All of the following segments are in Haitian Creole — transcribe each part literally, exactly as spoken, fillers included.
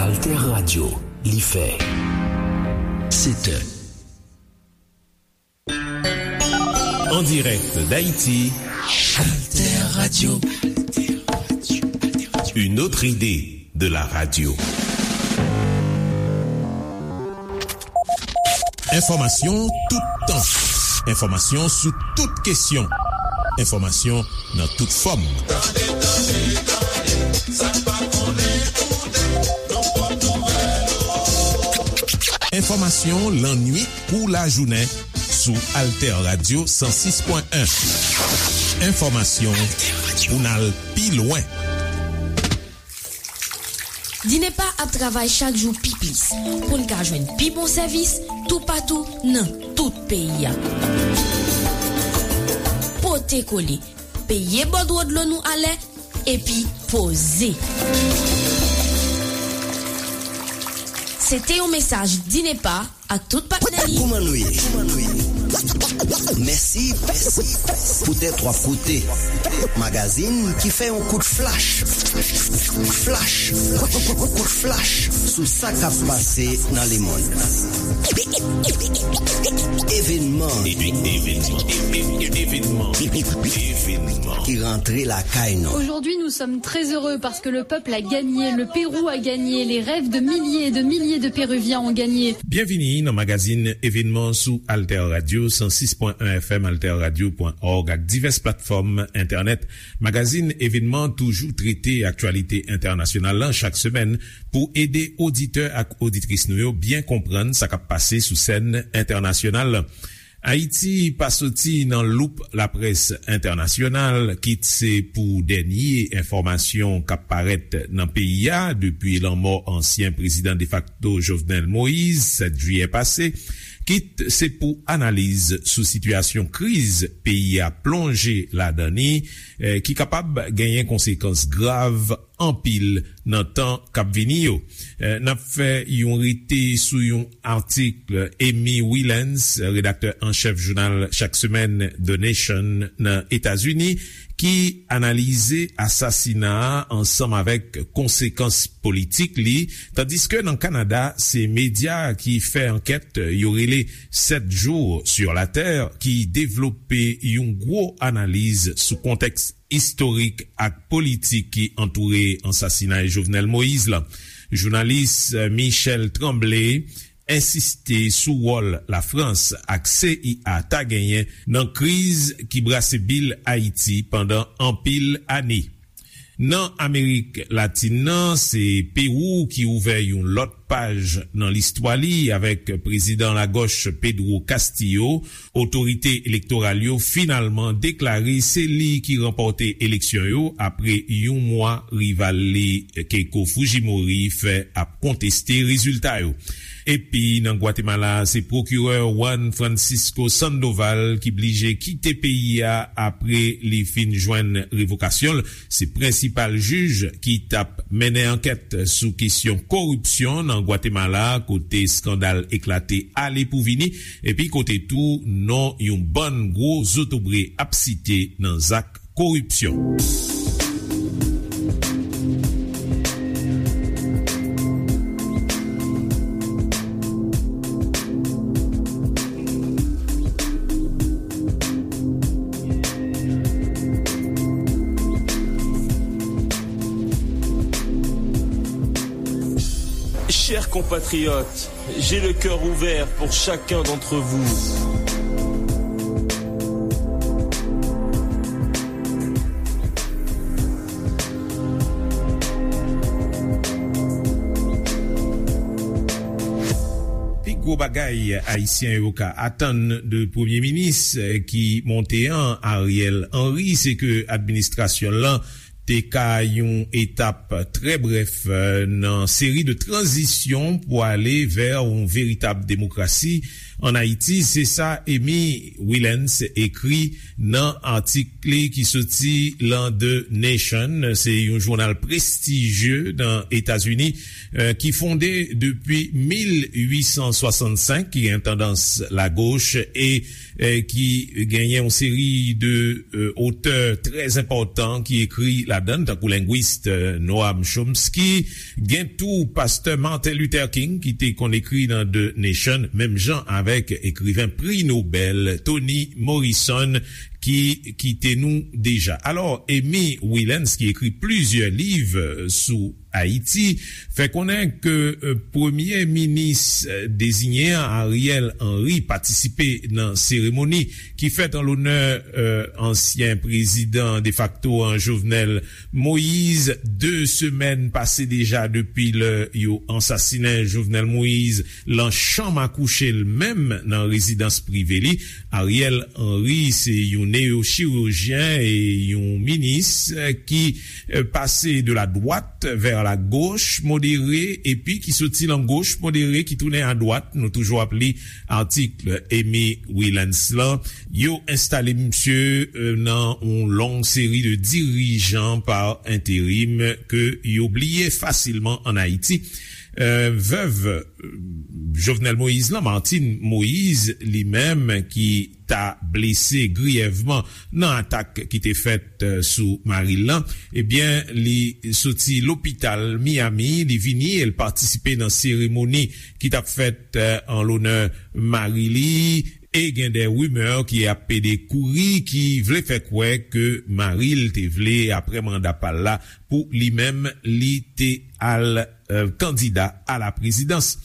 Alter Radio, li fè sèt è. En direct d'Haïti, Alter Radio. Une autre idée de la radio. Enfòmasyon tout tan. Enfòmasyon sou tout kesyon. Enfòmasyon nan tout fòm. Tande, tande, tande, sa n pa konnen konnen, nan pòt nouvèl yo. Enfòmasyon lannwit kou lajounen sou Alter Radio san sis pwen en. Enfòmasyon pou n al pi lwen. Dinepa ap travay chak jou pi plis pou n ka jwenn pi bon sèvis toupatou nan tout peyi a. Pote kole, peye bòdwo dlo nou alè, epi poze. Se te yon mesaj Dinepa ak tout patnè li. Kòman nou ye? Mèsi poutèt w ap koute magazin ki fè yon kout flach, flach, kout flach sou sa k ap pase nan lemonn. Evenman, evenman, evenman, evenman ki rantre lakay nou. Aujourd'hui, nous sommes très heureux parce que le peuple a gagné, le Pérou a gagné, les rêves de milliers et de milliers de Péruviens ont gagné. Byenvini nan magazin Evenman sou Alter Radio san sis pwen en F M, alter radio pwen org ak divès platfòm entènèt. Magazin Evenman toujou trete aktyalite entènasyonal lan chak semèn pou ede oditè ak oditris nou yo byen konprann sa k ap pase sou sèn entènasyonal lan. Ayiti pa soti nan loup laprès entènasyonal, kit se pou dènye enfòmasyon k ap parèt nan peyi a depi lanmò ansyen prezidan defakto Jovenel Moïse, sèt jiyè pase, kit se pou analiz sou sitiyasyon kriz peyi a plonje ladan li, eh, ki kapab genyen konsekans grav anpil nan tan k ap vini yo. Eh, n ap fè yon rete sou yon atik Amy Wilens, redaktè an chèf jounal chak semèn The Nation nan Etazini, ki analize asasina a ansanm avèk konsekans politik li, tandiske nan Kanada, se medya ki fè ankèt yo rele Sept Jours sur la Terre ki devlope yon gwo analiz sou kontèks istorik ak politik ki antoure ansasinay Jovenel Moïse lan. Jounalis, eh, Michel Tremblay ensiste sou wòl Lafrans ak C I A ta genyen nan kriz ki brase bil Ayiti pandan anpil ane. Nan Amerik Latin nan, se Pewou ki ouvè yon lòt paj nan listwa li avèk prezidan lagòch Pedro Castillo. Otorite elektoral yo finalman deklare se li ki ranpòte eleksyon yo apre yon mwa rival li Keiko Fujimori fè ap konteste rezilta yo. Epi nan Gwatemala, se pwokirè Juan Francisco Sandoval ki blije kite peyi a apre li fin jwenn revokasyon l. Se prensipal jij ki t ap mennen ankèt sou kesyon koripsyon nan Gwatemala, kote eskandal eklate ale pou vini, epi kote tou non yon bann gwo zotobre ap site nan zak koripsyon. Chers compatriotes, j'ai le cœur ouvert pour chacun d'entre vous. Pi gwo bagay Ayisyen yo ka atann de premye minis ki monte an, Ariel Henry, se ke administrasyon l lan te ka yon etap trè brèf, eh, nan seri de tranzisyon pou ale vè yon veritab demokrasi Ann Ayiti, se sa Amy Willens ekri nan atik li ki soti lan The Nation. Se yon jounal prestijye nan Etazini, eh, ki fonde depi mil uit san swasannsenk, ki gen tandans lagoch e, eh, ki genyen yon seri de, eh, otè trè enpòtan ki ekri ladan, tankou lengwis, eh, Noam Chomsky, gen tou pastè Martin Luther King ki te konn ekri nan The Nation, menm jan avèk ekriven pri Nobèl Toni Morrison ki kite nou deja. Alò, Amy Willens, ki ekri plizyè liv, eh, sou Ayiti, fè konnen ke, eh, premye minis, eh, deziyen an, Ariel Henry, patisipe nan seremoni ki fèt an lonè, eh, ansyen prezidan defakto an, Jovenel Moïse. De semèn pase deja depi lè yo ansasinen Jovenel Moïse lan chanm akouche l menm nan rezidans prive li. Ariel Henry se yon neyochirijyen e yon minis, eh, ki, eh, pase de la dwat vè la goch modere epi ki soti lan goch modere ki tounen a dwat. Nou toujou ap li atik Amy Willens lan. Yo enstale misye, eh, nan yon long seri de dirijan pa enterim ke yo bliye fasilman ann Ayiti. Eh, vèv, eh, Jovenel Moïse lan, Martine Moïse, li menm ki ta blese griyèvman nan atak ki te fèt, eh, sou mari l lan, ebyen, li soti lopital Miami, li vini e l patisipe nan seremoni ki t ap fèt, eh, an lonè mari li. E gen de rimè ki ap pede kouri, ki vle fè kwè ke mari l te vle, apre manda pa l la, pou li menm, li te al, eh, kandida a la prezidans.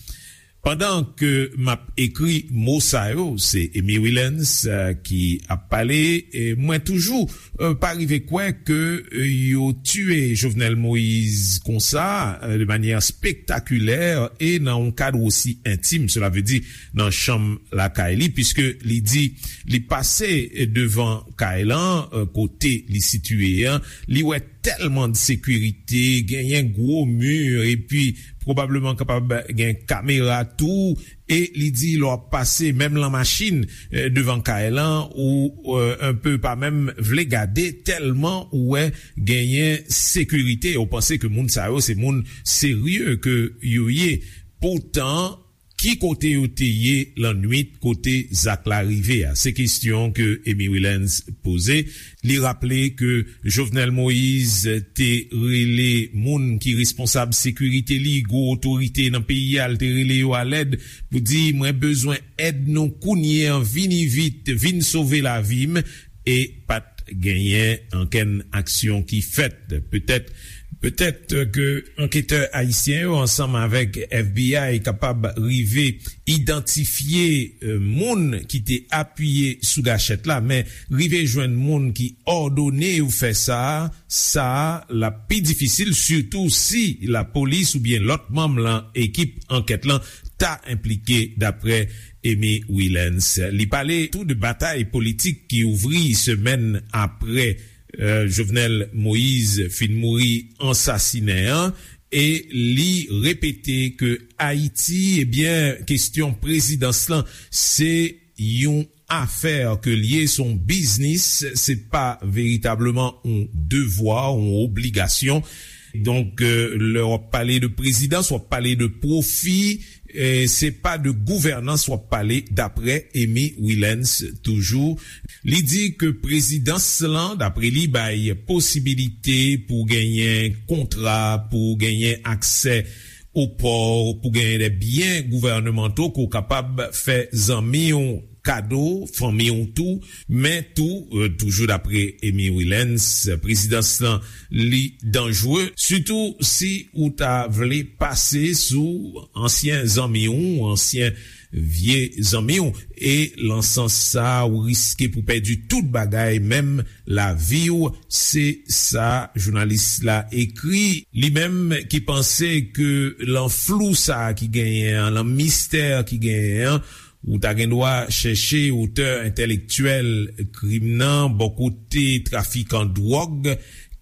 Pandan ke m ap ekri mo sa yo, se Amy Willens, eh, ki ap pale, e mwen toujou, eh, pa rive kwè ke, eh, yo tiye Jovenel Moïse konsa, eh, de manyè spektakilè e nan yon kad osi entim, sela vle di nan chanm lakay li, piske li di li pase devan kay lan, eh, kote li sitiye an, li wè tèlman de sekirite, genyen gwo mi, epi pwobableman kapab gen kamera tou, e li di lè w ap pase, menm lan machin, eh, devan kay lan, ou, eh, enpe pa menm vle gade, tèlman ou wè genyen sekirite, ou panse ke moun sa yo se moun serye ke yo ye. Poutan, ki kote yo te ye lannwit kote zak la rive a? Se kesyon ke Amy Willens poze. Li raple ke Jovenel Moïse te rele moun ki responsab sekirite li, gwo otorite nan peyi a, l te rele yo alèd pou di, "Mwen bezwen èd nou kounye a, vini vit, vin sove lavi m." E pa t genyen ankenn aksyon ki fèt. Petèt, petèt ke anketè ayisyen yo ansanm avèk F B I kapab rive idantifye, eh, moun ki te apiye sou gachèt la, men rive jwenn moun ki òdone yo fè sa, sa l ap pi difisil, sitou si lapolis oubyen lòt manm lan ekip ankèt lan ta enplike, dapre Amy Willens. Li pale tou de batay politik ki ouvri semèn apre, eh, Jovenel Moïse fin mouri ansasinen an, e li repete ke Ayiti, ebyen, kesyon prezidans lan, se yon afè ke l ye, se yon biznis, se pa veritableman yon devwa, yon obligasyon. Donk, eh, lè w ap pale de prezidans, w ap pale de pwofi, eh, se pa de gouvènans w ap pale, dapre Amy Willens toujou. Li di ke prezidans lan, dapre li, bay posibilite pou genyen kontra, pou genyen aksè o pò, pou genyen de byen gouvènemanto ke w kapab fè zanmi w kado, fanmi w tou, men tou, eh, toujou dapre Amy Willens, prezidans lan, li danjre, sitou si ou ta vle pase sou ansyen zanmi w, ansyen vye zanmi w, e lan sans sa, ou riske pou pèdi tout bagay, menm lavi w, se sa jounalis la ekri. Li menm ki panse ke lan flou sa ki genyen an, lan mistè ki genyen an, ou ta gen dwa chèche otè entèlektyèl krim nan bò kote trafikan dwòg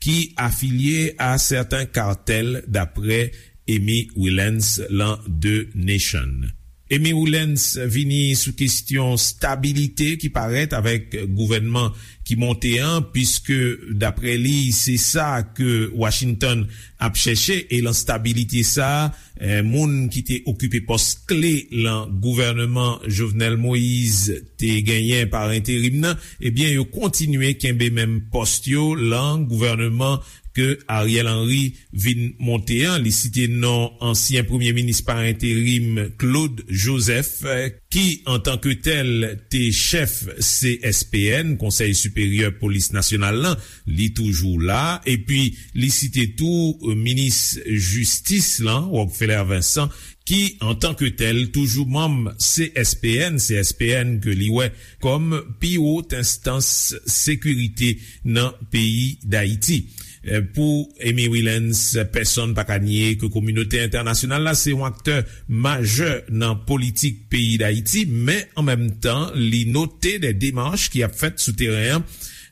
ki afilye a sèten katèl, dapre Amy Willens lan The Nation. Amy Wilens vini sou kesyon stabilite ki parèt avèk gouvènman ki monte an, piske, daprè li, se sa ke Washington ap chèche, e lan stabilite sa a, eh, moun ki te okipe pòs kle lan gouvènman Jovenel Moïse te genyen pa enterim nan, ebyen, yo kontinye kenbe menm pòs yo lan gouvènman ke Ariel Henry vin monte an. Li site non ansyen premye minis pa enterim Claude Joseph, eh, ki antanke tèl te chèf C S P N, Konsèy Siperyè Polis Nasyonal lan, li toujou la. Epi li site tou, eh, minis jistis lan, Rockefeller Vincent, ki antanke tèl toujou manm C S P N, C S P N ke li wè kòm pi wot enstans sekirite nan peyi Dayiti. Eh, pou Amy Wilens, pèsonn pa ka nye ke kominote entènasyonal la se yon aktè majè nan politik peyi Dayiti, men an menm tan, li note de demach ki ap fèt sou teren an,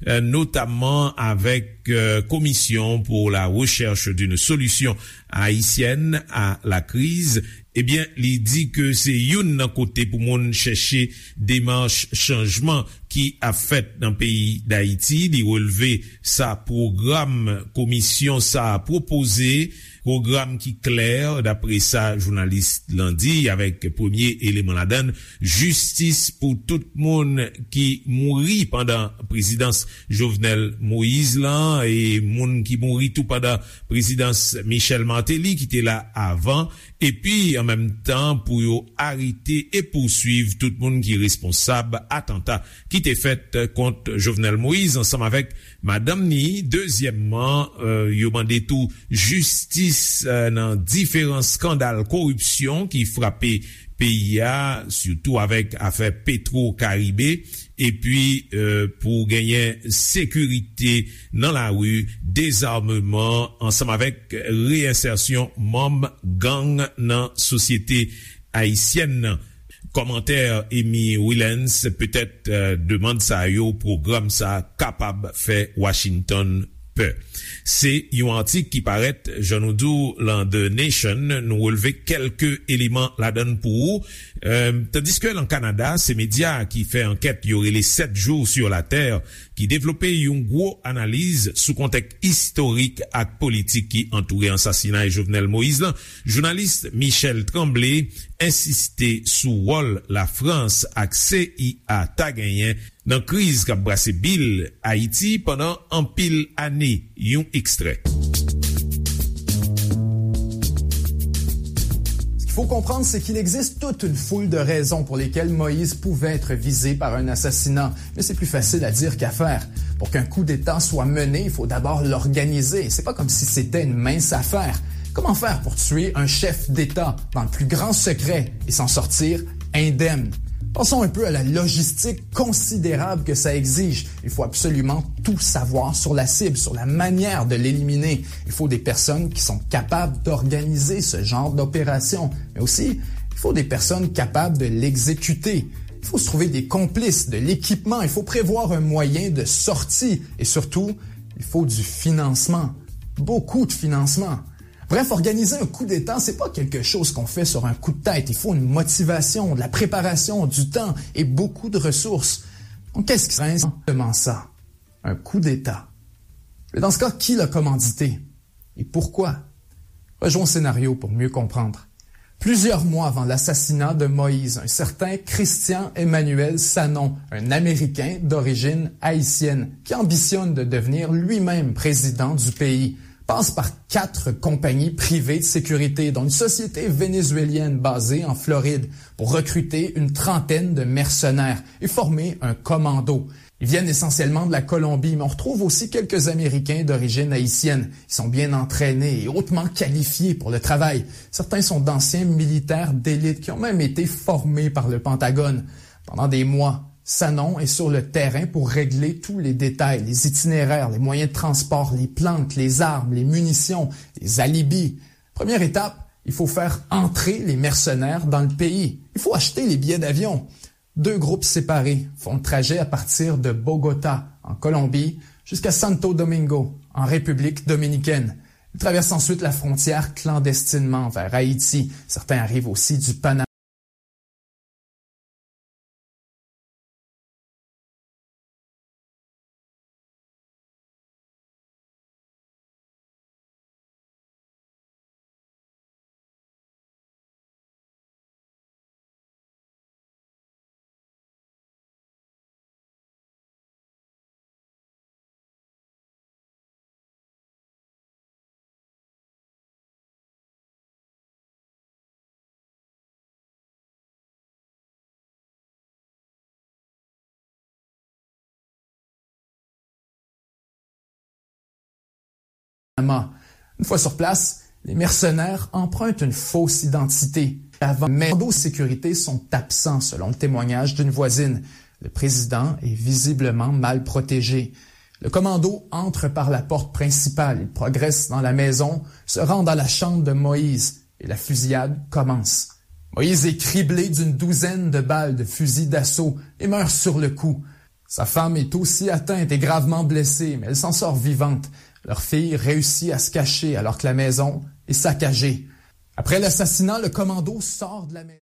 eh, notamman avèk, eh, Commission pour la recherche d'une solution haïtienne à la crise. Ebyen, li di ke se youn nan kote pou moun chèche demach chanjman ki ap fèt nan peyi Dayiti. Li relve sa pwogram komisyon sa a pwopoze, pwogram ki klè, dapre sa jounalis lan di, avèk premye eleman ladan l, jistis pou tout moun ki mouri pandan prezidans Jovenel Moïse lan, e moun ki mouri tou pandan prezidans Michel Martelly, ki te la avan, epi an menm tan pou yo arete e pouswiv tout moun ki responsab atanta ki te fèt kont Jovenel Moïse ansanm avèk madanm ni. Dezyèmman, eh, yo mande tou jistis, eh, nan diferan eskandal koripsyon ki frape peyi a, sitou avèk afè Petro Caribe, epi, eh, pou genyen sekirite nan lari, dezameman, ansanm avèk reyensèsyon manm gang nan sosyete ayisyèn nan. Kòmantè Amy Wilens, petèt, eh, demann sa yo, pwogram sa kapab fè Washington pè. Se yon atik ki parèt, jan nou di w, lan The Nation. Nou relve kèlke eleman ladan l pou ou. Eh, tandiske lan Kanada, se medya ki fè ankèt yo rele Sept jours sur la terre ki devlope yon gwo analiz sou kontèks istorik ak politik ki antoure ansasinay Jovenel Moïse lan. Jounalis Michel Tremblay ensiste sou wòl Lafrans ak C I A ta genyen nan kriz k ap brase bil Ayiti pandan anpil ane. Yon ekstrè. Ce qu'il faut comprendre, c'est qu'il existe toute une foule de raisons pour lesquelles Moïse pouvait être visé par un assassinat. Mais c'est plus facile à dire qu'à faire. Pour qu'un coup d'État soit mené, il faut d'abord l'organiser. C'est pas comme si c'était une mince affaire. Comment faire pour tuer un chef d'État dans le plus grand secret et s'en sortir indemne? Pensons un peu à la logistique considérable que ça exige. Il faut absolument tout savoir sur la cible, sur la manière de l'éliminer. Il faut des personnes qui sont capables d'organiser ce genre d'opération. Mais aussi, il faut des personnes capables de l'exécuter. Il faut se trouver des complices, de l'équipement. Il faut prévoir un moyen de sortie. Et surtout, il faut du financement. Beaucoup de financement. Bref, organiser un coup d'État, c'est pas quelque chose qu'on fait sur un coup de tête. Il faut une motivation, de la préparation, du temps et beaucoup de ressources. Donc, qu'est-ce qui serait exactement ça? Un coup d'État. Mais dans ce cas, qui l'a commandité? Et pourquoi? Rejoins au scénario pour mieux comprendre. Plusieurs mois avant l'assassinat de Moïse, un certain Christian Emmanuel Sanon, un Américain d'origine haïtienne, qui ambitionne de devenir lui-même président du pays, passe par quatre compagnies privées de sécurité, dont une société vénézuélienne basée en Floride, pour recruter une trentaine de mercenaires et former un commando. Ils viennent essentiellement de la Colombie, mais on retrouve aussi quelques Américains d'origine haïtienne. Ils sont bien entraînés et hautement qualifiés pour le travail. Certains sont d'anciens militaires d'élite qui ont même été formés par le Pentagone. Pendant des mois, Sanon est sur le terrain pour régler tous les détails, les itinéraires, les moyens de transport, les planques, les armes, les munitions, les alibis. Première étape, il faut faire entrer les mercenaires dans le pays. Il faut acheter les billets d'avion. Deux groupes séparés font le trajet à partir de Bogota, en Colombie, jusqu'à Santo Domingo, en République dominicaine. Ils traversent ensuite la frontière clandestinement vers Haïti. Certains arrivent aussi du Panama. Panama. Une fois sur place, les mercenaires empruntent une fausse identité. Avant, mais les commandos de sécurité sont absents, selon le témoignage d'une voisine. Le président est visiblement mal protégé. Le commando entre par la porte principale. Il progresse dans la maison, se rend dans la chambre de Moïse et la fusillade commence. Moïse est criblé d'une douzaine de balles de fusil d'assaut et meurt sur le coup. Sa femme est aussi atteinte et gravement blessée, mais elle s'en sort vivante. Leur fille réussit à se cacher alors que la maison est saccagée. Après l'assassinat, le commando sort de la maison.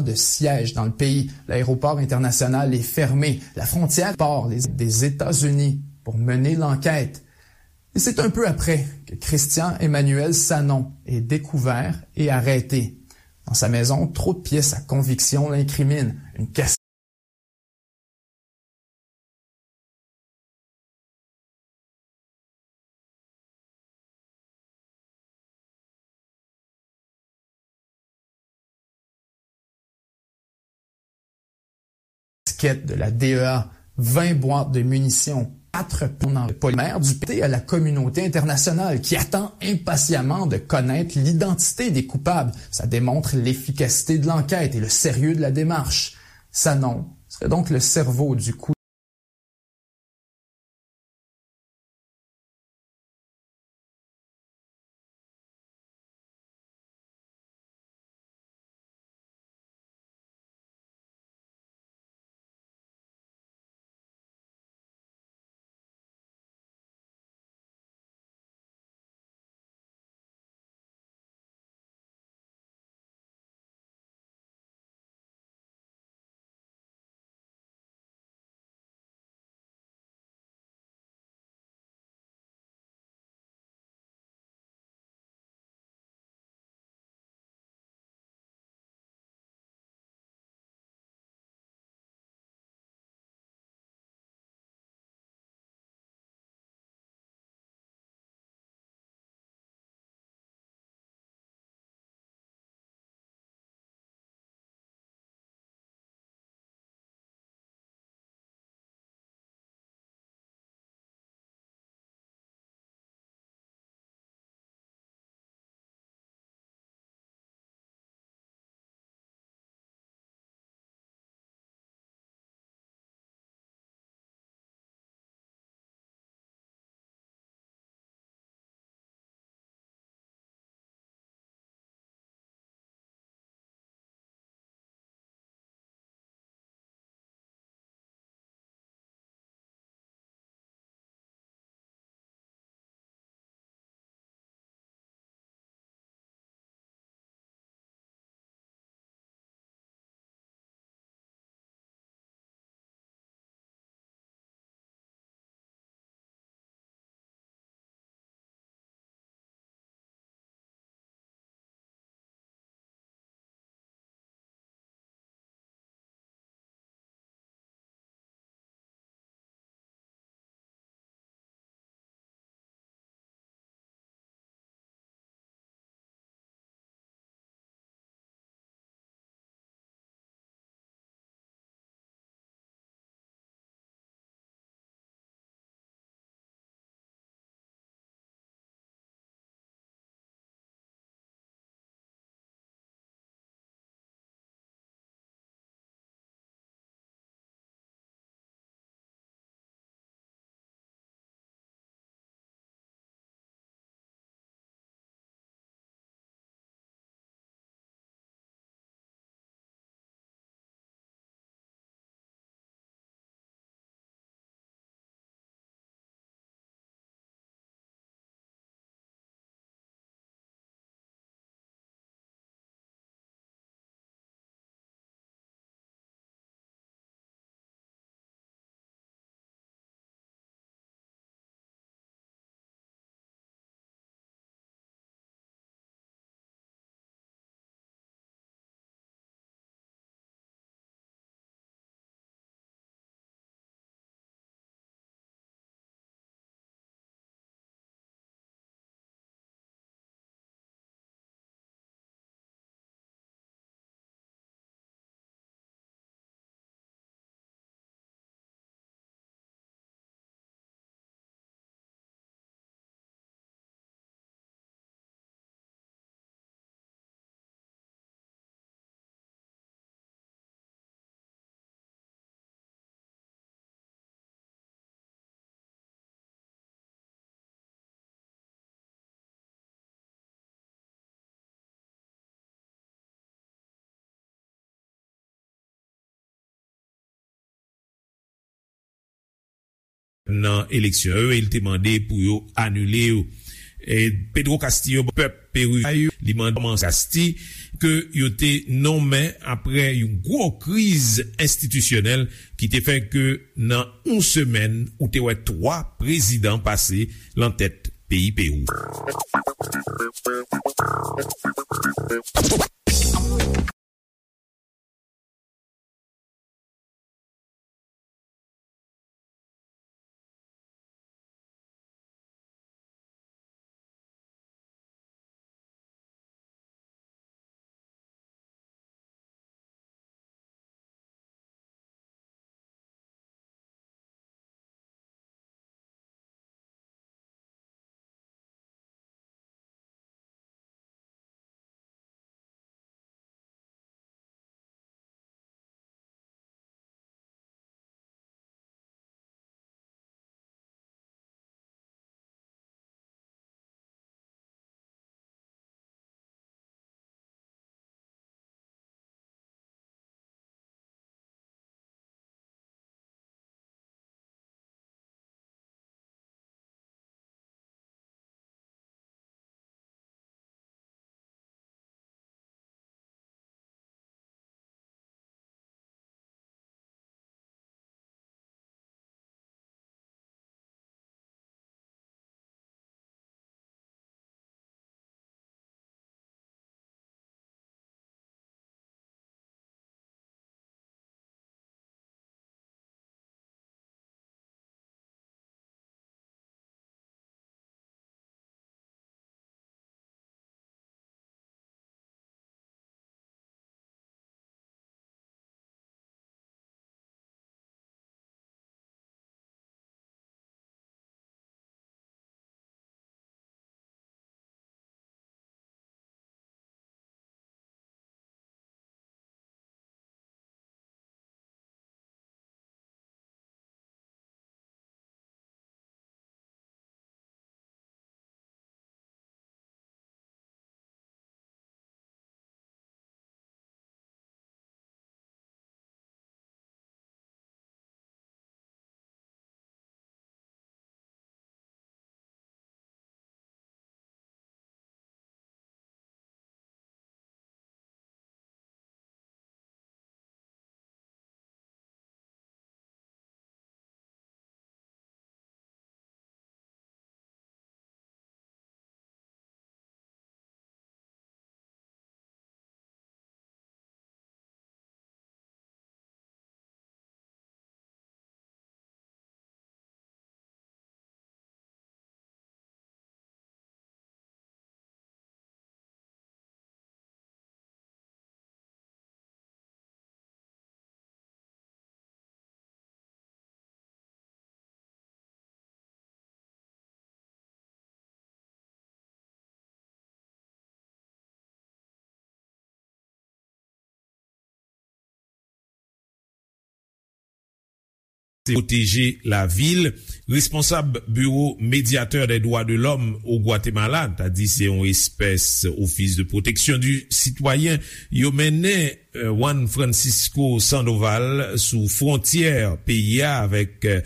De siège dans le pays. L'aéroport international est fermé. La frontière par les, des États-Unis pour mener l'enquête. Et c'est un peu après que Christian Emmanuel Sanon est découvert et arrêté. Dans sa maison, trop de pièces à conviction l'incriminent. Une Casquette de la D E A, vingt boîtes de munitions, quatre points de polymère du P T à la communauté internationale qui attend impatiemment de connaître l'identité des coupables. Ça démontre l'efficacité de l'enquête et le sérieux de la démarche. Sanon serait donc le cerveau du coup. nan eleksyon yo e li te mande pou yo anile yo. E Pedro Castillo, pèp Peri a yo, li mande kòmanse Casti ke yo te nonmen apre yon gwo kriz enstitisyonèl ki te fè ke nan yon semèn, ou te wè twa prezidan pase lan tèt peyi Pewou. Pwoteje lavil. Responsab Biwo Medyatè dè Dwa de Lòm o Gwatemala, ta di se yon espès Office de Protection du Citoyen, yo mennen, eh, Juan Francisco Sandoval sou fwontyè peyi a avèk, eh,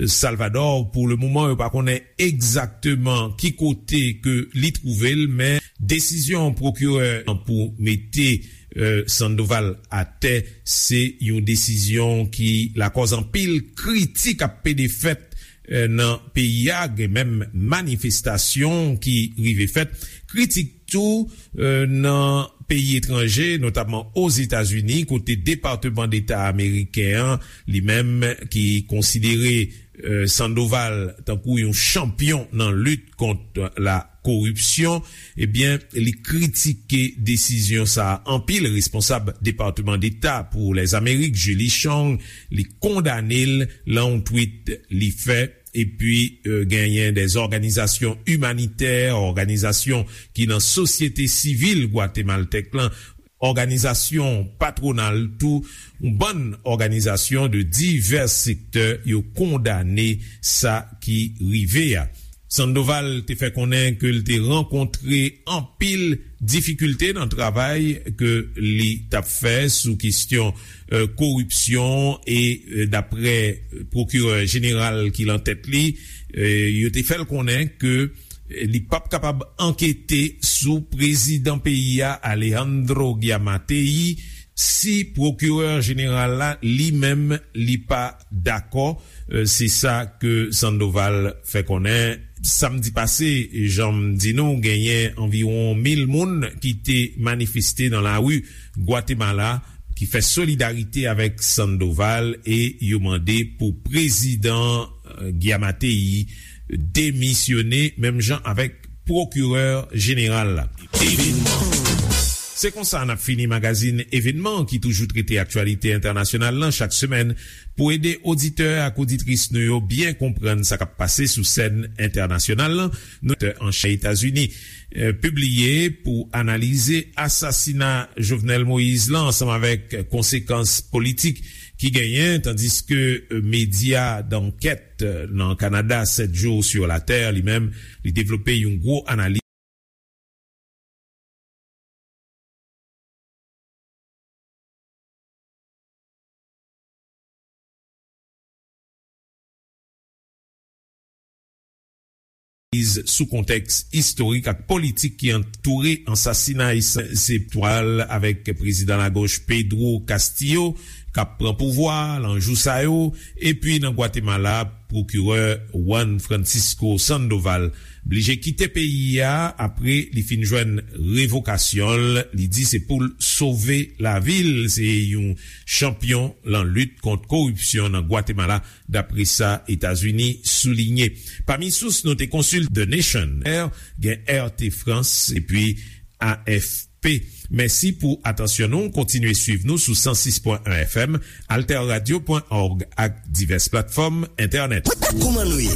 Salvador. Pou le moman, yo pa konnen egzakteman ki kote ke li twouve l, men desizyon pwokirè an pou mete, eh, Sandoval atè, se yon desizyon ki lakòz anpil kritik ap pede fèt, eh, nan peyi a, gen menm manifestasyon ki rive fèt. Kritik tou, eh, nan peyi etranje, notamman Ozetazini, kote Depatman Deta ameriken an, li menm ki konsidere, eh, Sandoval tankou yon chanpyon nan lit kont la koripsyon, ebyen, li kritike desizyon sa a anpil. Responsab Depatman Deta pou Lèzamerik, Julie Chong, li kondane l lan yon tweet li fè. Epi, eh, genyen dè òganizasyon imanitè, òganizasyon ki nan sosyete sivil gwatemaltèk lan, òganizasyon patwonal tou, yon bann òganizasyon de divès sektè, yo kondane sa ki rive a. Sandoval te fè konnen ke l te rankontre anpil difikilte nan travay ke li t ap fè sou kesyon, e, koripsyon e, e, daprè pwokirè jeneral ki lan tèt li, e, yo te fè l konnen ke li p ap kapab ankete sou prezidan peyi a, Alejandro Giammattei, si pwokirè jeneral la li menm li pa dakò. E, se sa ke Sandoval fè konnen. Samdi pase, jan m di nou, genyen anviwon mil moun ki te manifeste nan lari Gwatemala ki fè solidarite avèk Sandoval e yo mande pou prezidan, e, Giammattei demisyone, menm jan avèk pwokirè jeneral la. Se konsa n ap fini magazin Evenman ki toujou trete aktyalite entènasyonal lan chak semèn. Pou ede oditè ak oditris nou yo byen konprann sa k ap pase sou sèn entènasyonal lan, nou te an chè Etazini, e, pibliye pou analize asasina Jovenel Moïse lan ansanm avèk konsekans politik ki genyen, tandiske, e, medya dankèt, e, nan Kanada, Sept Jours sur la Terre, li menm, li devlope yon gwo analiz. Sou kontèks istorik ak politik ki antoure ansasinay Sen-, Septwal avèk prezidan lagoch Pedro Castillo k ap pran pouvwa lan jou sa yo, epi nan Gwatemala, pwokirè Juan Francisco Sandoval blije kite peyi a apre li fin jwenn revokasyon l. Li di se pou l sove lavi l. Se yon chanpyon lan lit kont koripsyon nan Gwatemala, dapre sa Etazini soulinye. Pami sous nou te konsilte The Nation, gen R T France epi A F P. Mèsi pou atansyon nou. Kontinye swiv nou sou san sis pwen en F M, alterradio pwen org ak divès platfòm entènèt. Kòman nou ye?